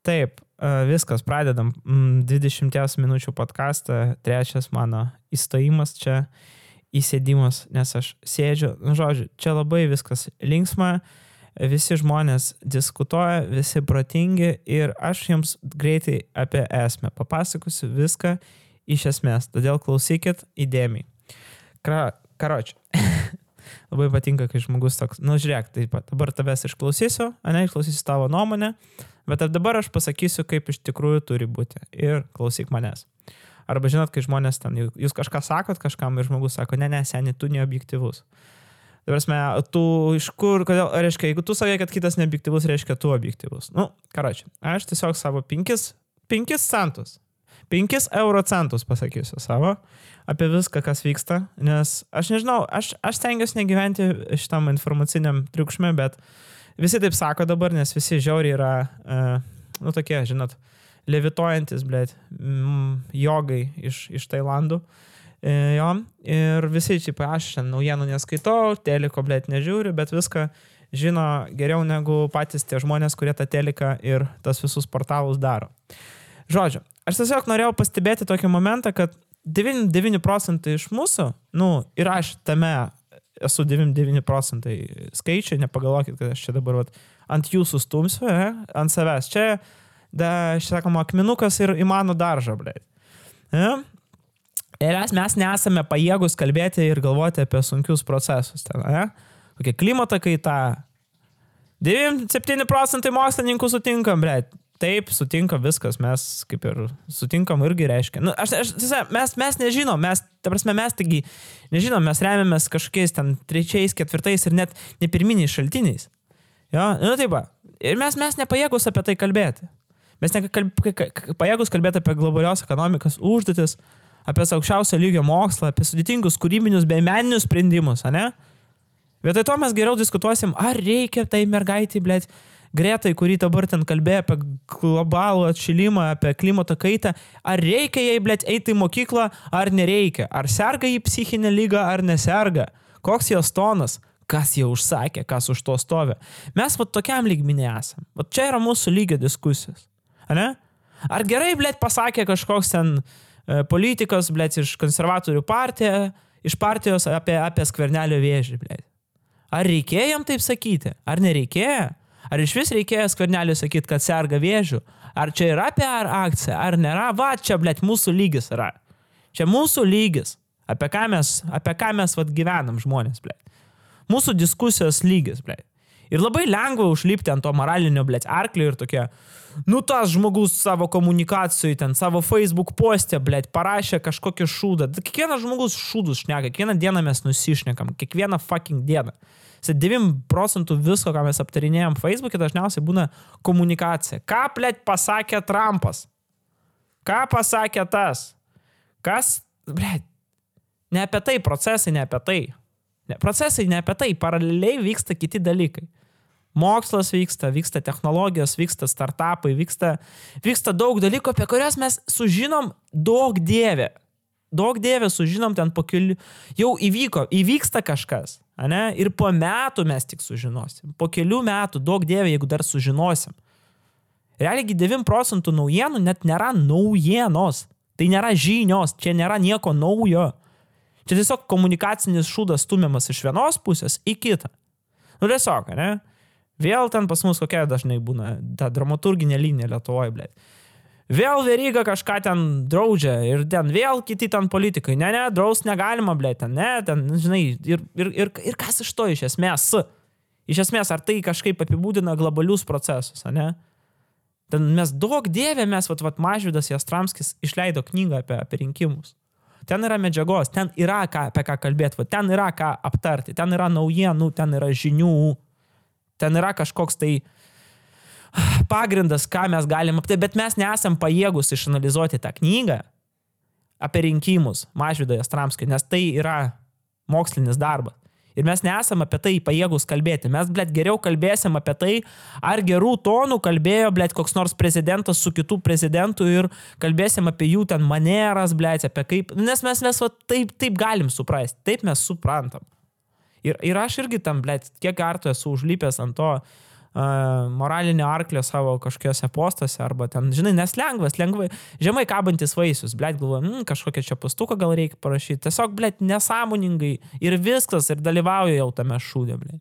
Taip, viskas, pradedam 20 minučių podcastą, trečias mano įstojimas čia, įsėdimas, nes aš sėdžiu, žodžiu, čia labai viskas linksma, visi žmonės diskutuoja, visi protingi ir aš jums greitai apie esmę papasakosiu viską iš esmės, todėl klausykit įdėmiai. Karoči, labai patinka, kai žmogus toks, žiūrėk, taip pat, dabar tavęs išklausysiu, išklausysiu tavo nuomonę, bet dabar aš pasakysiu, kaip iš tikrųjų turi būti ir klausyk manęs. Arba žinot, kai žmonės ten, jūs kažką sakot kažkam ir žmogus sako, ne, seni, tu neobjektyvus. Dabar tu iš kur, kodėl, reiškia, jeigu tu sakai, kad kitas neobjektyvus, reiškia, tu objektyvus. Karoči, aš tiesiog savo 5 centus, 5 euro centus pasakysiu savo apie viską, kas vyksta, nes aš nežinau, aš stengiuosi negyventi šitam informaciniam triukšme, bet visi taip sako dabar, nes visi žiauriai yra, tokie, žinot, levituojantis, jogai iš Tailandų. Jo, ir visi čia, aš naujienų neskaitau, teliko, nežiūriu, bet viską žino geriau negu patys tie žmonės, kurie tą teliką ir tas visus portalus daro. Žodžiu, aš tiesiog norėjau pastebėti tokį momentą, kad 99% iš mūsų, ir aš tame esu 99% skaičiai, nepagalvokit, kad aš čia dabar ant jūsų stumsiu, ant savęs. Čia, sakoma, akmenukas ir į mano daržą, Ir mes nesame pajėgus kalbėti ir galvoti apie sunkius procesus. Kokia klimato kaita. 97% mokslininkų sutinkam, Taip, sutinkam viskas, mes kaip ir sutinkam irgi reiškia. Mes nežinom, mes taigi nežinom, mes remiamės kažkokiais ten 3, 4 ir net ne pirminiais šaltiniais. Jo, taip, ir mes nepajėgus apie tai kalbėti. Mes nepajėgus kalbėti apie globalios ekonomikos užduotis, apie aukščiausio lygio mokslą, apie sudėtingus kūrybinius bei meninius sprendimus, ne? Vietoj to mes geriau diskutuosim, ar reikia tai mergaitai, Gretai, kurį dabar ten kalbėjo apie globalų atšilimą, apie klimato kaitą, ar reikia jai, eiti į mokyklą, ar nereikia, ar serga jį psichinę lygą, ar neserga, koks jos tonas, kas jau užsakė, kas už to stovi. Mes tokiam lygmenį esam. Čia yra mūsų lygio diskusijos, ne? Ar gerai, pasakė kažkoks ten politikas, iš konservatorių iš partijos apie Skvernelio vėžį, Ar reikėjo jam taip sakyti? Ar nereikėjo? Ar iš vis reikėjo Skverneliui sakyti, kad serga vėžiu? Ar čia yra PR akcija? Ar nėra? Čia, mūsų lygis yra. Čia mūsų lygis. Apie ką mes gyvenam žmonės, Mūsų diskusijos lygis, Ir labai lengva užlipti ant to moralinio, arklio ir tokie, tas žmogus savo komunikacijoj, ten savo Facebook postė, parašė kažkokį šūdą. Kiekvienas žmogus šūdus šneka, kiekvieną dieną mes nusišnekam, kiekvieną fucking dieną. 9% visko, ką mes aptarinėjom Facebook'e, dažniausiai būna komunikacija. Ką, pasakė Trumpas? Ką pasakė tas? Kas, ne apie tai, procesai ne apie tai. Procesai ne apie tai, paraleliai vyksta kiti dalykai. Mokslas vyksta technologijos, vyksta startupai, vyksta daug dalykų, apie kurias mes sužinom daug dievė. Daug dievė sužinom ten po kelių. Jau įvyksta kažkas, ne? Ir po metų mes tik sužinosim. Po kelių metų daug dievė, jeigu dar sužinosim. Realiai 9% naujienų net nėra naujienos. Tai nėra žinios, čia nėra nieko naujo. Čia tiesiog komunikacinis šūdas stumiamas iš vienos pusės į kitą. Tiesiog, ne? Vėl ten pas mus kokia dažnai būna ta dramaturginė linija Lietuvoje, Vėl Veryga kažką ten draudžia ir ten vėl kiti ten politikai. Ne, draust negalima, ten, žinai, ir kas iš to iš esmės? Iš esmės, ar tai kažkaip apibūdina globalius procesus, ne? Ten mes daug dievė, Mažvydas Jastramskis išleido knygą apie rinkimus. Ten yra medžiagos, ten yra apie ką kalbėti, ten yra ką aptarti, ten yra naujienų, ten yra žinių, ten yra kažkoks tai pagrindas, ką mes galim aptarti, bet mes nesam pajėgus išanalizuoti tą knygą apie rinkimus Mažvydo Jastramskio, nes tai yra mokslinis darbas. Ir mes nesam apie tai pajėgus kalbėti. Mes, geriau kalbėsim apie tai, ar gerų tonų kalbėjo, koks nors prezidentas su kitų prezidentų ir kalbėsim apie jų ten maneras, apie kaip, nes mes taip galim suprasti, taip mes suprantam. Ir aš irgi tam, kiek kartų esu užlipęs ant to moralinį arklį savo kažkokiuose postuose, arba ten, žinai, nes lengvai, žemai kabantis vaisius, blėt, galvoju, kažkokią čia pastuką gal reikia parašyti, tiesiog, blėt, nesąmoningai ir viskas, ir dalyvauju jau tame šūdė, blėt.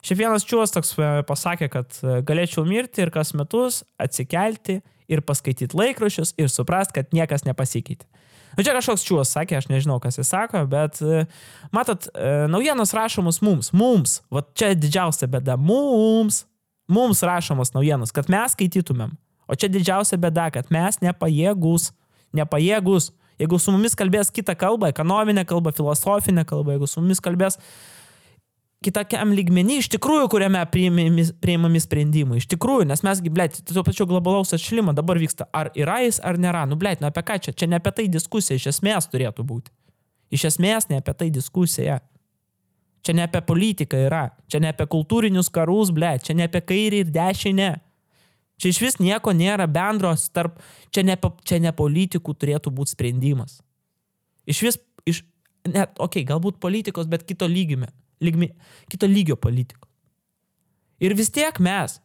Šiaip vienas čiūvas toks pasakė, kad galėčiau mirti ir kas metus atsikelti ir paskaityti laikraščius ir suprast, kad niekas nepasikeitė. Nu, čia kažkoks čiūvas sakė, aš nežinau, kas jis sako, bet matot, naujienos rašomos mums, va čia didžiausia bėda, mums rašomos naujienos, kad mes skaitytumėm, o čia didžiausia bėda, kad mes nepajėgus, jeigu su mumis kalbės kitą kalbą, ekonominę kalbą, filosofinę kalbą, jeigu su mumis kalbės kitokiam lygmenį, iš tikrųjų, kuriame priimami sprendimai. Iš tikrųjų, nes mesgi, blėt, tuo pačiu globalaus atšilimo dabar vyksta, ar yra jis, ar nėra. Nu, blėt, apie ką čia? Čia ne apie tai diskusija, iš esmės turėtų būti. Iš esmės ne apie tai diskusija. Čia ne apie politiką yra. Čia ne apie kultūrinius karus, blėt. Čia ne apie kairį ir dešinę. Čia iš vis nieko nėra bendros tarp... Čia ne politikų turėtų būti sprendimas. Galbūt politikos, bet kito lygio politikų. Ir vis tiek mes,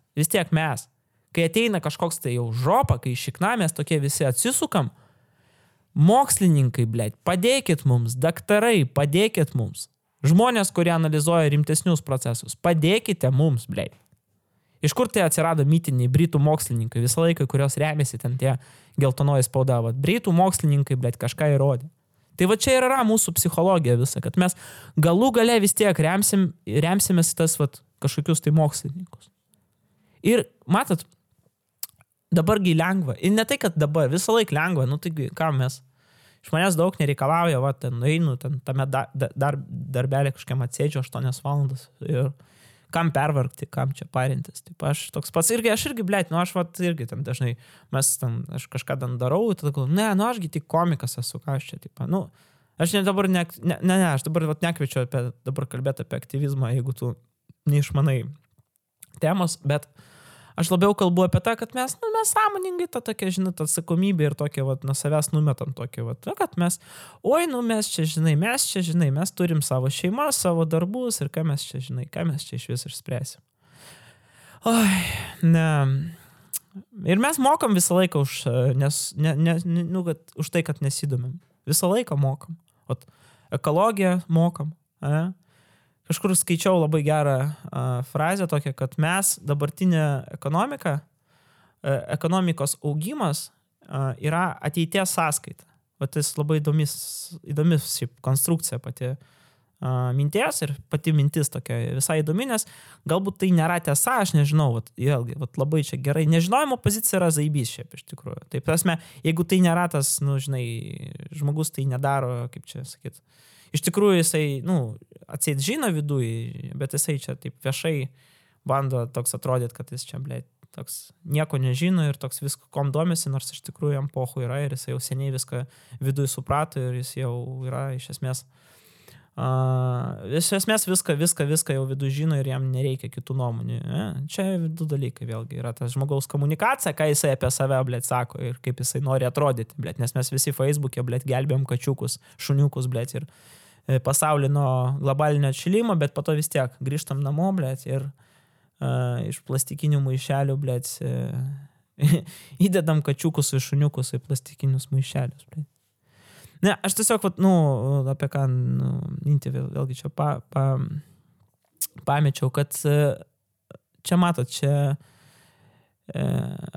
kai ateina kažkoks tai jau žopa, kai šikna mes tokie visi atsisukam, mokslininkai, blėt, padėkit mums, daktarai, padėkit mums, žmonės, kurie analizuoja rimtesnius procesus, padėkite mums, blėt. Iš kur tai atsirado mitiniai britų mokslininkai, visą laiką, kurios remiasi ten tie geltonoji spauda, britų mokslininkai, blėt, kažką įrodė. Tai va čia ir yra mūsų psichologija visa, kad mes galų gale vis tiek remsimės tas kažkokius tai mokslininkus. Ir matot, dabargi lengva. Ir ne tai, kad dabar, visą laiką lengva, nu tai ką mes, iš manęs daug nereikalauja, ten einu, tame darbelį kažkiam atsėdžiu 8 valandas ir kam pervargti, kam čia parintis. Taip, aš toks pats aš irgi, blėt, aš irgi ten dažnai, aš kažką ten darau, tada galvoju, ašgi tik komikas esu, ką aš čia, taip, aš dabar aš dabar nekviečiu dabar kalbėti apie aktyvizmą, jeigu tu neišmanai temos, bet aš labiau kalbu apie tą, kad mes sąmoningai tą tokią, žinai, tą atsakomybę ir tokią, nuo savęs numetam tokią, kad mes mes turim savo šeimas, savo darbus ir ką mes čia iš vis išspręsim. Ir mes mokam visą laiką už tai, kad nesidomim. Visą laiką mokam. Ekologiją mokam, Kažkur skaičiau labai gerą frazę tokią, kad mes dabartinė ekonomikos augimas yra ateities sąskaita. Tas labai įdomis šiaip konstrukcija pati minties ir pati mintis tokia visai įdomi, nes galbūt tai nėra tiesa, aš nežinau, labai čia gerai. Nežinojimo pozicija yra zaibys šiaip iš tikrųjų. Taip, prasme, jeigu tai nėra tas, žmogus tai nedaro, kaip čia sakyt. Iš tikrųjų jisai, atseit žino viduj, bet jisai čia taip viešai bando toks atrodyti, kad jis čia, blėt, toks nieko nežino ir toks visko kom domisi, nors iš tikrųjų jam pochu yra ir jisai jau seniai viską viduj suprato ir jis jau yra iš esmės viską jau viduj žino ir jam nereikia kitų nuomonių. Čia du dalykai vėlgi yra tas žmogaus komunikacija, ką jisai apie save, blėt, sako ir kaip jisai nori atrodyti, blėt, nes mes visi Facebook'e, blėt, gelbėjom kačiukus, šuniukus, blėt, ir pasaulį nuo globalinio atšilimo, bet po to vis tiek grįžtam namo, blėt, ir iš plastikinių maišelių, blėt, įdedam kačiukus ir šuniukus į plastikinius maišelius, blėt. Ne, aš tiesiog, apie ką mintį vėlgi čia pamečiau, kad čia matot, čia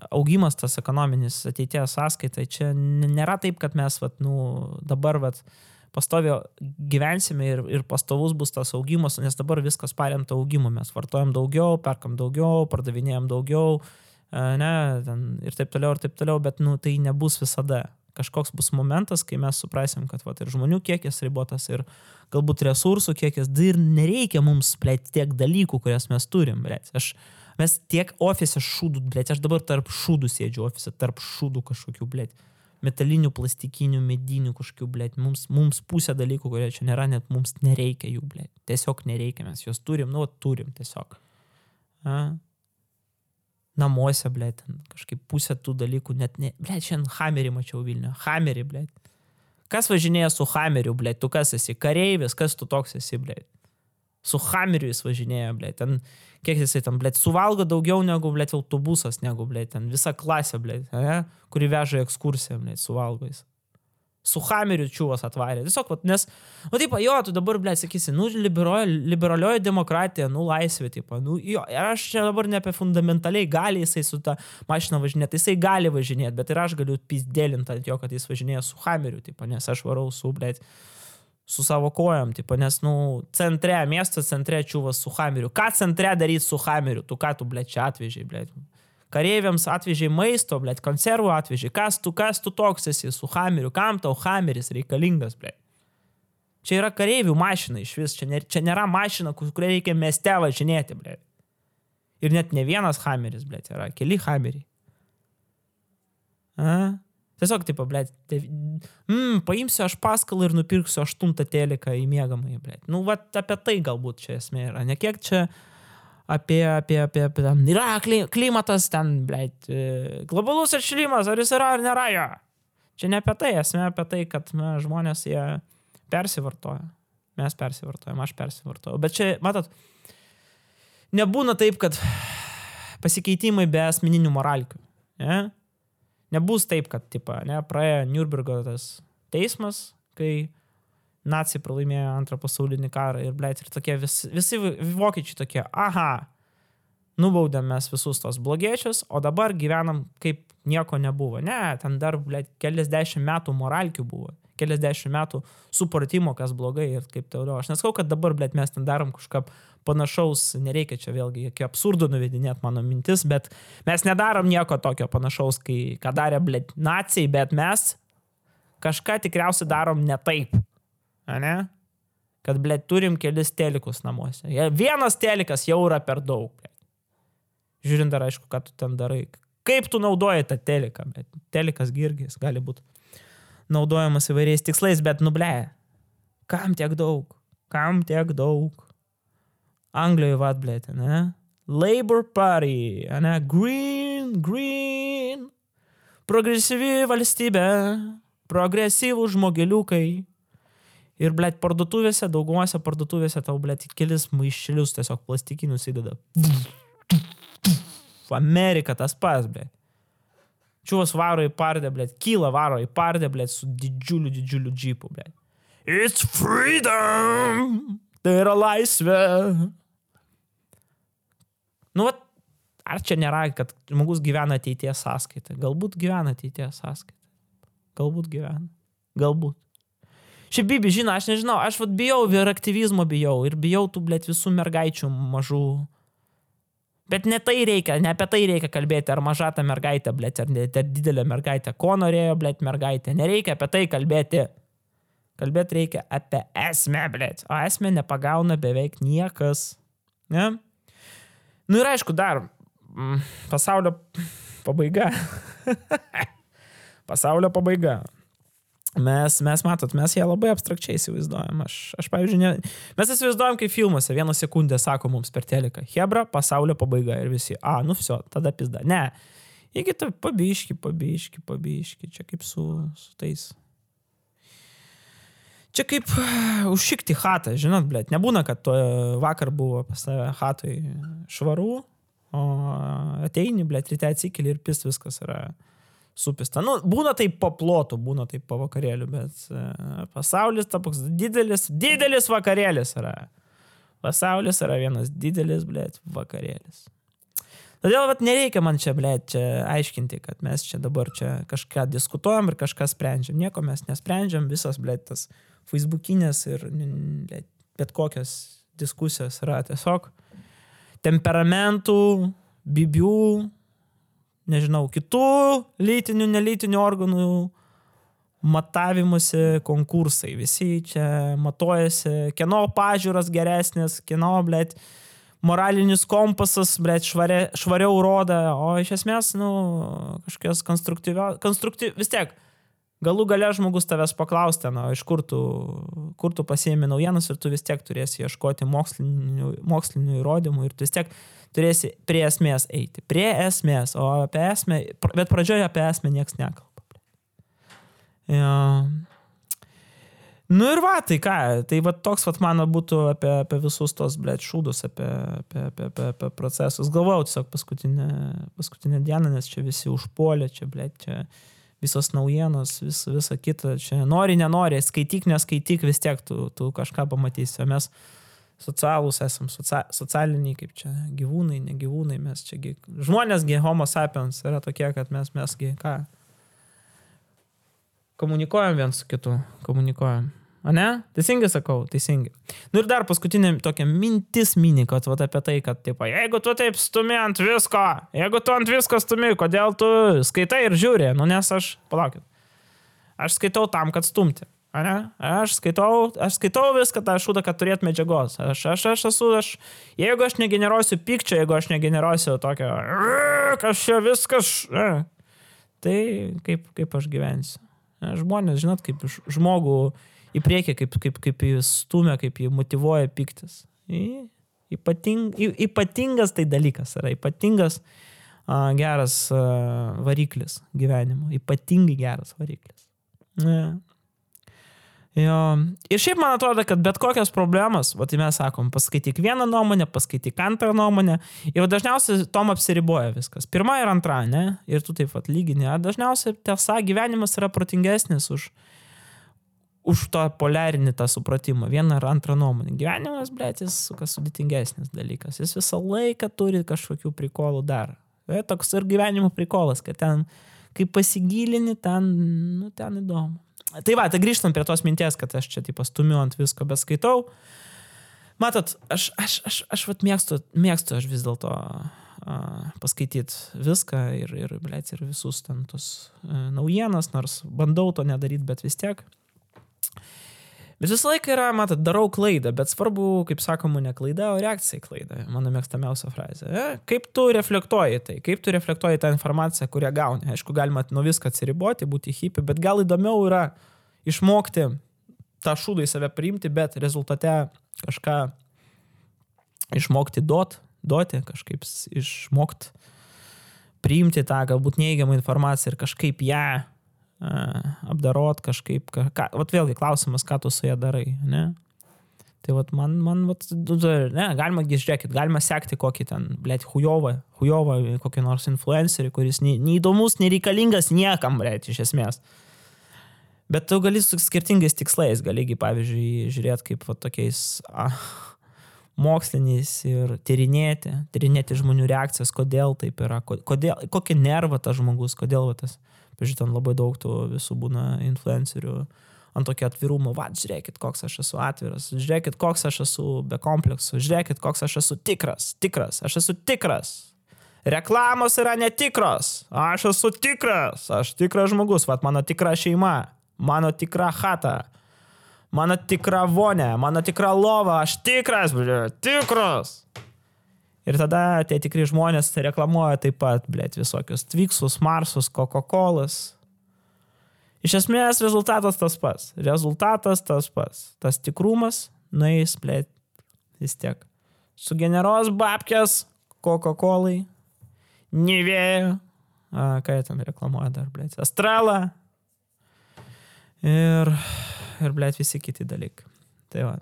augimas tas ekonominis ateities sąskaitai, čia nėra taip, kad mes dabar pastovio gyvensime ir pastovus bus tas augimas, nes dabar viskas paremta augimu, mes vartojam daugiau, perkam daugiau, pardavinėjam daugiau, ir taip toliau, bet tai nebus visada. Kažkoks bus momentas, kai mes suprasim, kad ir žmonių kiekis ribotas ir galbūt resursų kiekis, ir nereikia mums, blėt, tiek dalykų, kurias mes turim, blėt. Mes tiek ofise šūdų, blėt, aš dabar tarp šūdų sėdžiu ofise, tarp šūdų kažkokių, blėt, metalinių, plastikinių, medinių kažkokių, blėt, mums pusė dalykų, kurie čia nėra, net mums nereikia jų, blėt, tiesiog nereikia, mes juos turim, turim tiesiog. Namuose, blėt, kažkaip pusė tų dalykų net ne... Blėt, šiandien Hamerį mačiau Vilniuje. Hamerį, blėt. Kas važinėja su Hameriu, blėt? Tu kas esi? Kareivis? Kas tu toks esi, blėt? Su Hammeriu jis važinėja, blėt. Ten, kiek jisai tam, blėt, suvalgo daugiau negu, blėt, autobusas, negu, blėt, ten visa klasė, blėt, kuri veža į ekskursiją, blėt, suvalgo jis. Su Hammeriu čiūvas atvarė. Tiesiog, nes, taip, jo, tu dabar, blėt, sakysi, liberalioji demokratija, laisvė, taip, jo, ir aš čia dabar ne apie fundamentaliai gali jisai su ta mašina važinėti, jisai gali važinėti, bet ir aš galiu pizdelinti ant jo, kad jis važinėja su Hammeriu, taip, nes aš varau su, blėt, su savo kojom, tipo, nes, centre, miesto centre čiūvas su Hammeriu. Ką centre daryti su Hammeriu? Tu ką tu, blėt, čia atvežiai, blėt? Kareiviams atvežiai maisto, blėt, konservų atvežiai. Kas tu toks esi su Hammeriu? Kam tau Hammeris reikalingas, blėt? Čia yra kareivių mašina iš vis. Čia nėra mašina, kurią reikia mieste važinėti, blėt. Ir net ne vienas Hammeris, blėt, yra keli Hammeriai. Tiesiog, tipo, blėt, paimsiu aš paskalą ir nupirksiu 8 teliką į miegamąjį, blėt. Apie tai galbūt čia esmė yra. Ne kiek čia apie yra klimatas ten, blėt, globalus atšilimas, ar jis yra ar nėra jo. Čia ne apie tai, esmė apie tai, kad žmonės jie persivartoja. Mes persivartojam, aš persivartoju. Bet čia, matot, nebūna taip, kad pasikeitimai be asmeninių moralkių, ne? Nebus taip, kad, tipo, praėjo Nürnbergo tas teismas, kai naciai pralaimėjo antrą pasaulinį karą ir, blėt, ir tokie visi vokiečiai tokie, nubaudėm mes visus tos blogiečius, o dabar gyvenam kaip nieko nebuvo. Ne, ten dar, blėt, keliasdešimt metų moralkių buvo, keliasdešimt metų supratimo, kas blogai ir kaip toliau. Aš neskau, kad dabar, blėt, mes ten darom kažką panašaus, nereikia čia vėlgi iki absurdo nuvedinėti mano mintis, bet mes nedarom nieko tokio panašaus, ką darė, blėt, naciai, bet mes kažką tikriausiai darom ne taip, ne? Kad, blėt, turim kelis telikus namuose. Vienas telikas jau yra per daug, blėt. Žiūrint dar, aišku, ką tu ten darai. Kaip tu naudoji tą teliką, blėt. Telikas girgis gali būti naudojamas įvairiais tikslais, bet, blėt, kam tiek daug? Kam tiek daug? Anglijoje vat, blėt, ne? Labour Party, ne? Green. Progresyvi valstybė, progresyvų žmogeliukai. Ir, blėt, parduotuvėse, daugumose parduotuvėse tau, blėt, kelis maišelius tiesiog plastikinius įdeda. Amerika tas pas, blėt. Čiūvas varo į pardę, blėt, kyla varo į pardę, blėt, su didžiuliu džipu, blėt. It's freedom! Tai yra laisvė! Ar čia nėra, kad žmogus gyvena ateities sąskaitą? Galbūt gyvena ateities sąskaitą. Galbūt gyvena. Galbūt. Šiaip, Bibi, žino, aš nežinau, aš bijau ir aktyvizmo bijau. Ir bijau tų, blėt, visų mergaičių mažų. Bet ne tai reikia, ne apie tai reikia kalbėti, ar maža ta mergaitė, blėt, ar didelė mergaitė. Ko norėjo, blėt, mergaitė? Nereikia apie tai kalbėti. Kalbėti reikia apie esmę, blėt. O esmę nepagauna beveik niekas. Ne? Ir aišku, dar pasaulio pabaiga. Pasaulio pabaiga. Mes matot, mes ją labai abstrakčiai įsivaizduojam. Aš pavyzdžiui, mes įsivaizduojam kaip filmuose, 1 sekundę sako mums per teliką. Hebra, pasaulio pabaiga ir visi. Vsio, tada pizda. Ne. Iki tai pabiški. Čia kaip su tais. Čia kaip užšikti chatą, žinot, blėt. Nebūna, kad vakar buvo pas tave chatoj švaru, o ateini, blėt, ryte atsikeli ir pist viskas yra supista. Būna taip po plotų, būna taip po vakarėlių, bet pasaulis toks didelis vakarėlis yra. Pasaulis yra vienas didelis, blėt, vakarėlis. Todėl, nereikia man čia, blėt, čia aiškinti, kad mes čia dabar čia kažką diskutuojam ir kažką sprendžiam. Nieko mes nesprendžiam, visas, blėt, tas Facebookinės ir bet kokios diskusijos yra tiesiog temperamentų, bibių, nežinau, kitų lytinių, nelytinių organų matavimuose konkursai. Visi čia matuojasi, kieno pažiūros geresnės, kieno, blėt, moralinis kompasas, blėt, švariau roda, o iš esmės, kažkokios vis tiek, galų gale žmogus tavęs paklausti, iš kur tu pasiėmi naujienas ir tu vis tiek turėsi ieškoti mokslinių įrodymų ir tu vis tiek turėsi prie esmės eiti. Prie esmės, o apie esmę, bet pradžioje apie esmę nieks nekalba. Ja. Nu ir va, tai ką, tai va toks vat mano būtų apie visus tos, blėt, šūdus, apie procesus. Galvojau tiesiog paskutinę dieną, nes čia visi užpuolė, čia, blėt, čia visos naujienos, visa kita, čia nori, nenori, skaityk, neskaityk, vis tiek tu kažką pamatysi, o mes socialūs esam, socialiniai, kaip čia, gyvūnai, ne gyvūnai, mes čia, žmonėsgi, homo sapiens yra tokie, kad mesgi, ką, komunikuojam viens su kitu, komunikuojam. A ne? Teisingai sakau, teisingai. Nu ir dar paskutinė tokia mintis mini, kad vat apie tai, kad taip, jeigu tu taip stumi ant visko, jeigu tu ant visko stumi, kodėl tu skaitai ir žiūri, nu nes palaukit, aš skaitau tam, kad stumti. Ne? Aš skaitau viską tą šūdą, kad turėt medžiagos. Jeigu aš negeneruosiu pykčio, jeigu aš negeneruosiu tokio, kas čia viskas, tai kaip aš gyvensiu. Žmonės, žinot, kaip žmogų į priekį, kaip jis stumia, kaip jį motyvuoja pyktis. Ypatingas tai dalykas yra, ypatingas geras variklis gyvenimo, ypatingai geras variklis. Jo. Ir šiaip man atrodo, kad bet kokios problemas, va tai mes sakom, paskaityk vieną nuomonę, paskaityk antrą nuomonę, ir dažniausiai tom apsiriboja viskas. Pirma ir antra, ne? Ir tu taip pat lygini. Dažniausiai tiesa, gyvenimas yra protingesnis už tą poliarinį tą supratimą. Vieną ar antrą nuomonę. Gyvenimas, blėt, jis sudėtingesnis dalykas. Jis visą laiką turi kažkokių prikolų dar. Toks ir gyvenimo prikolas, kad ten, kai pasigilini, ten įdomu. Tai va, tai grįžtam prie tos minties, kad aš čia taip stumiu ant visko, bet skaitau. Matot, aš vat mėgstu aš vis dėlto paskaityti viską ir visus ten tos naujienas, nors bandau to nedaryti, bet vis tiek. Bet visą laiką yra, matot, darau klaidą, bet svarbu, kaip sakoma, ne klaida, o reakcija į klaidą. Mano mėgstamiausia frazė. Kaip tu reflektuoji tai? Kaip tu reflektuoji tą informaciją, kurią gauni? Aišku, galima nuo viską atsiriboti, būti hippie, bet gal įdomiau yra išmokti tą šūdą į save priimti, bet rezultate kažką išmokti duoti, kažkaip išmokti priimti tą galbūt neįgiamą informaciją ir kažkaip ją apdarot kažkaip, vat vėlgi klausimas, ką tu su ją darai, ne? Tai vat man ne, galima sekti kokį ten, blėt, hujovą, kokį nors influencerį, kuris neįdomus, nereikalingas niekam, blėt, iš esmės. Bet tu gali su skirtingais tikslais, galigi, pavyzdžiui, žiūrėti kaip vat tokiais moksliniais ir tyrinėti žmonių reakcijas, kodėl taip yra, kokį nervą tas žmogus, kodėl tas. Pažiūrėjau, ten labai daug tų visų būna influencerių ant tokio atvirumo. Va, žiūrėkit, koks aš esu atviras, žiūrėkit, koks aš esu be kompleksų, žiūrėkit, koks aš esu tikras, aš esu tikras. Reklamos yra netikros, aš esu tikras, aš tikras žmogus, va, mano tikra šeima, mano tikra chata, mano tikra vonė, mano tikra lova, aš tikras, tikras. Ir tada tie tikri žmonės reklamuoja taip pat, blėt, visokius Twixus, Marsus, Coca-Colas. Iš esmės rezultatas tas pats. Tas tikrumas nueis, blėt, vis tiek. Sugeneruos babkės Coca-Colai, Nivea, ką jie ten reklamuoja dar, blėt, Estrela ir blėt, visi kiti dalykai. Tai va.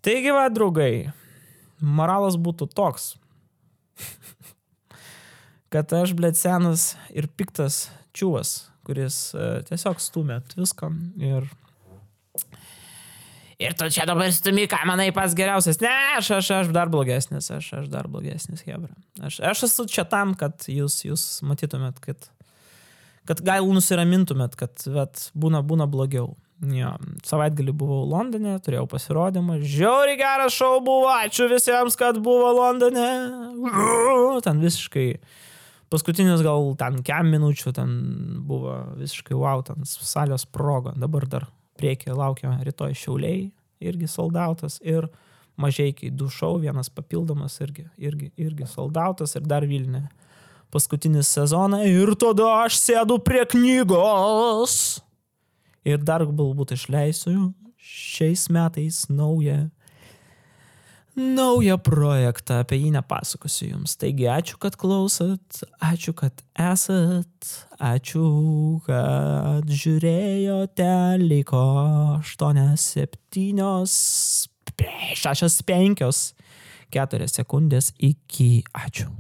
Taigi va, draugai. Moralas būtų toks, kad aš, blėt, senas ir piktas čiūvas, kuris tiesiog stumė visko ir tu čia dabar stumi, ką manai pats geriausias. Ne, aš dar blogesnis, hebra. Aš esu čia tam, kad jūs matytumėt, kad gal nusiramintumėt, kad vat, būna blogiau. Jo, savaitgalį buvau Londone, turėjau pasirodymą, žiauriai geras šou buvo, ačiū visiems, kad buvo Londone, ten visiškai, paskutinis gal ten kem minučių, ten buvo visiškai wow, ten salės sprogo, dabar dar priekį laukia rytoj Šiauliai, irgi soldautas, ir Mažeikiai 2 šou, vienas papildomas, irgi soldautas, ir dar Vilniuje paskutinis sezoną, ir tada aš sėdu prie knygos. Ir dar galbūt išleisiu šiais metais naują naują projektą, apie jį nepasakosiu jums. Taigi ačiū, kad klausot, ačiū, kad esat, ačiū, kad žiūrėjote, liko 8, 7, 6, 5, 4 sekundės iki ačiū.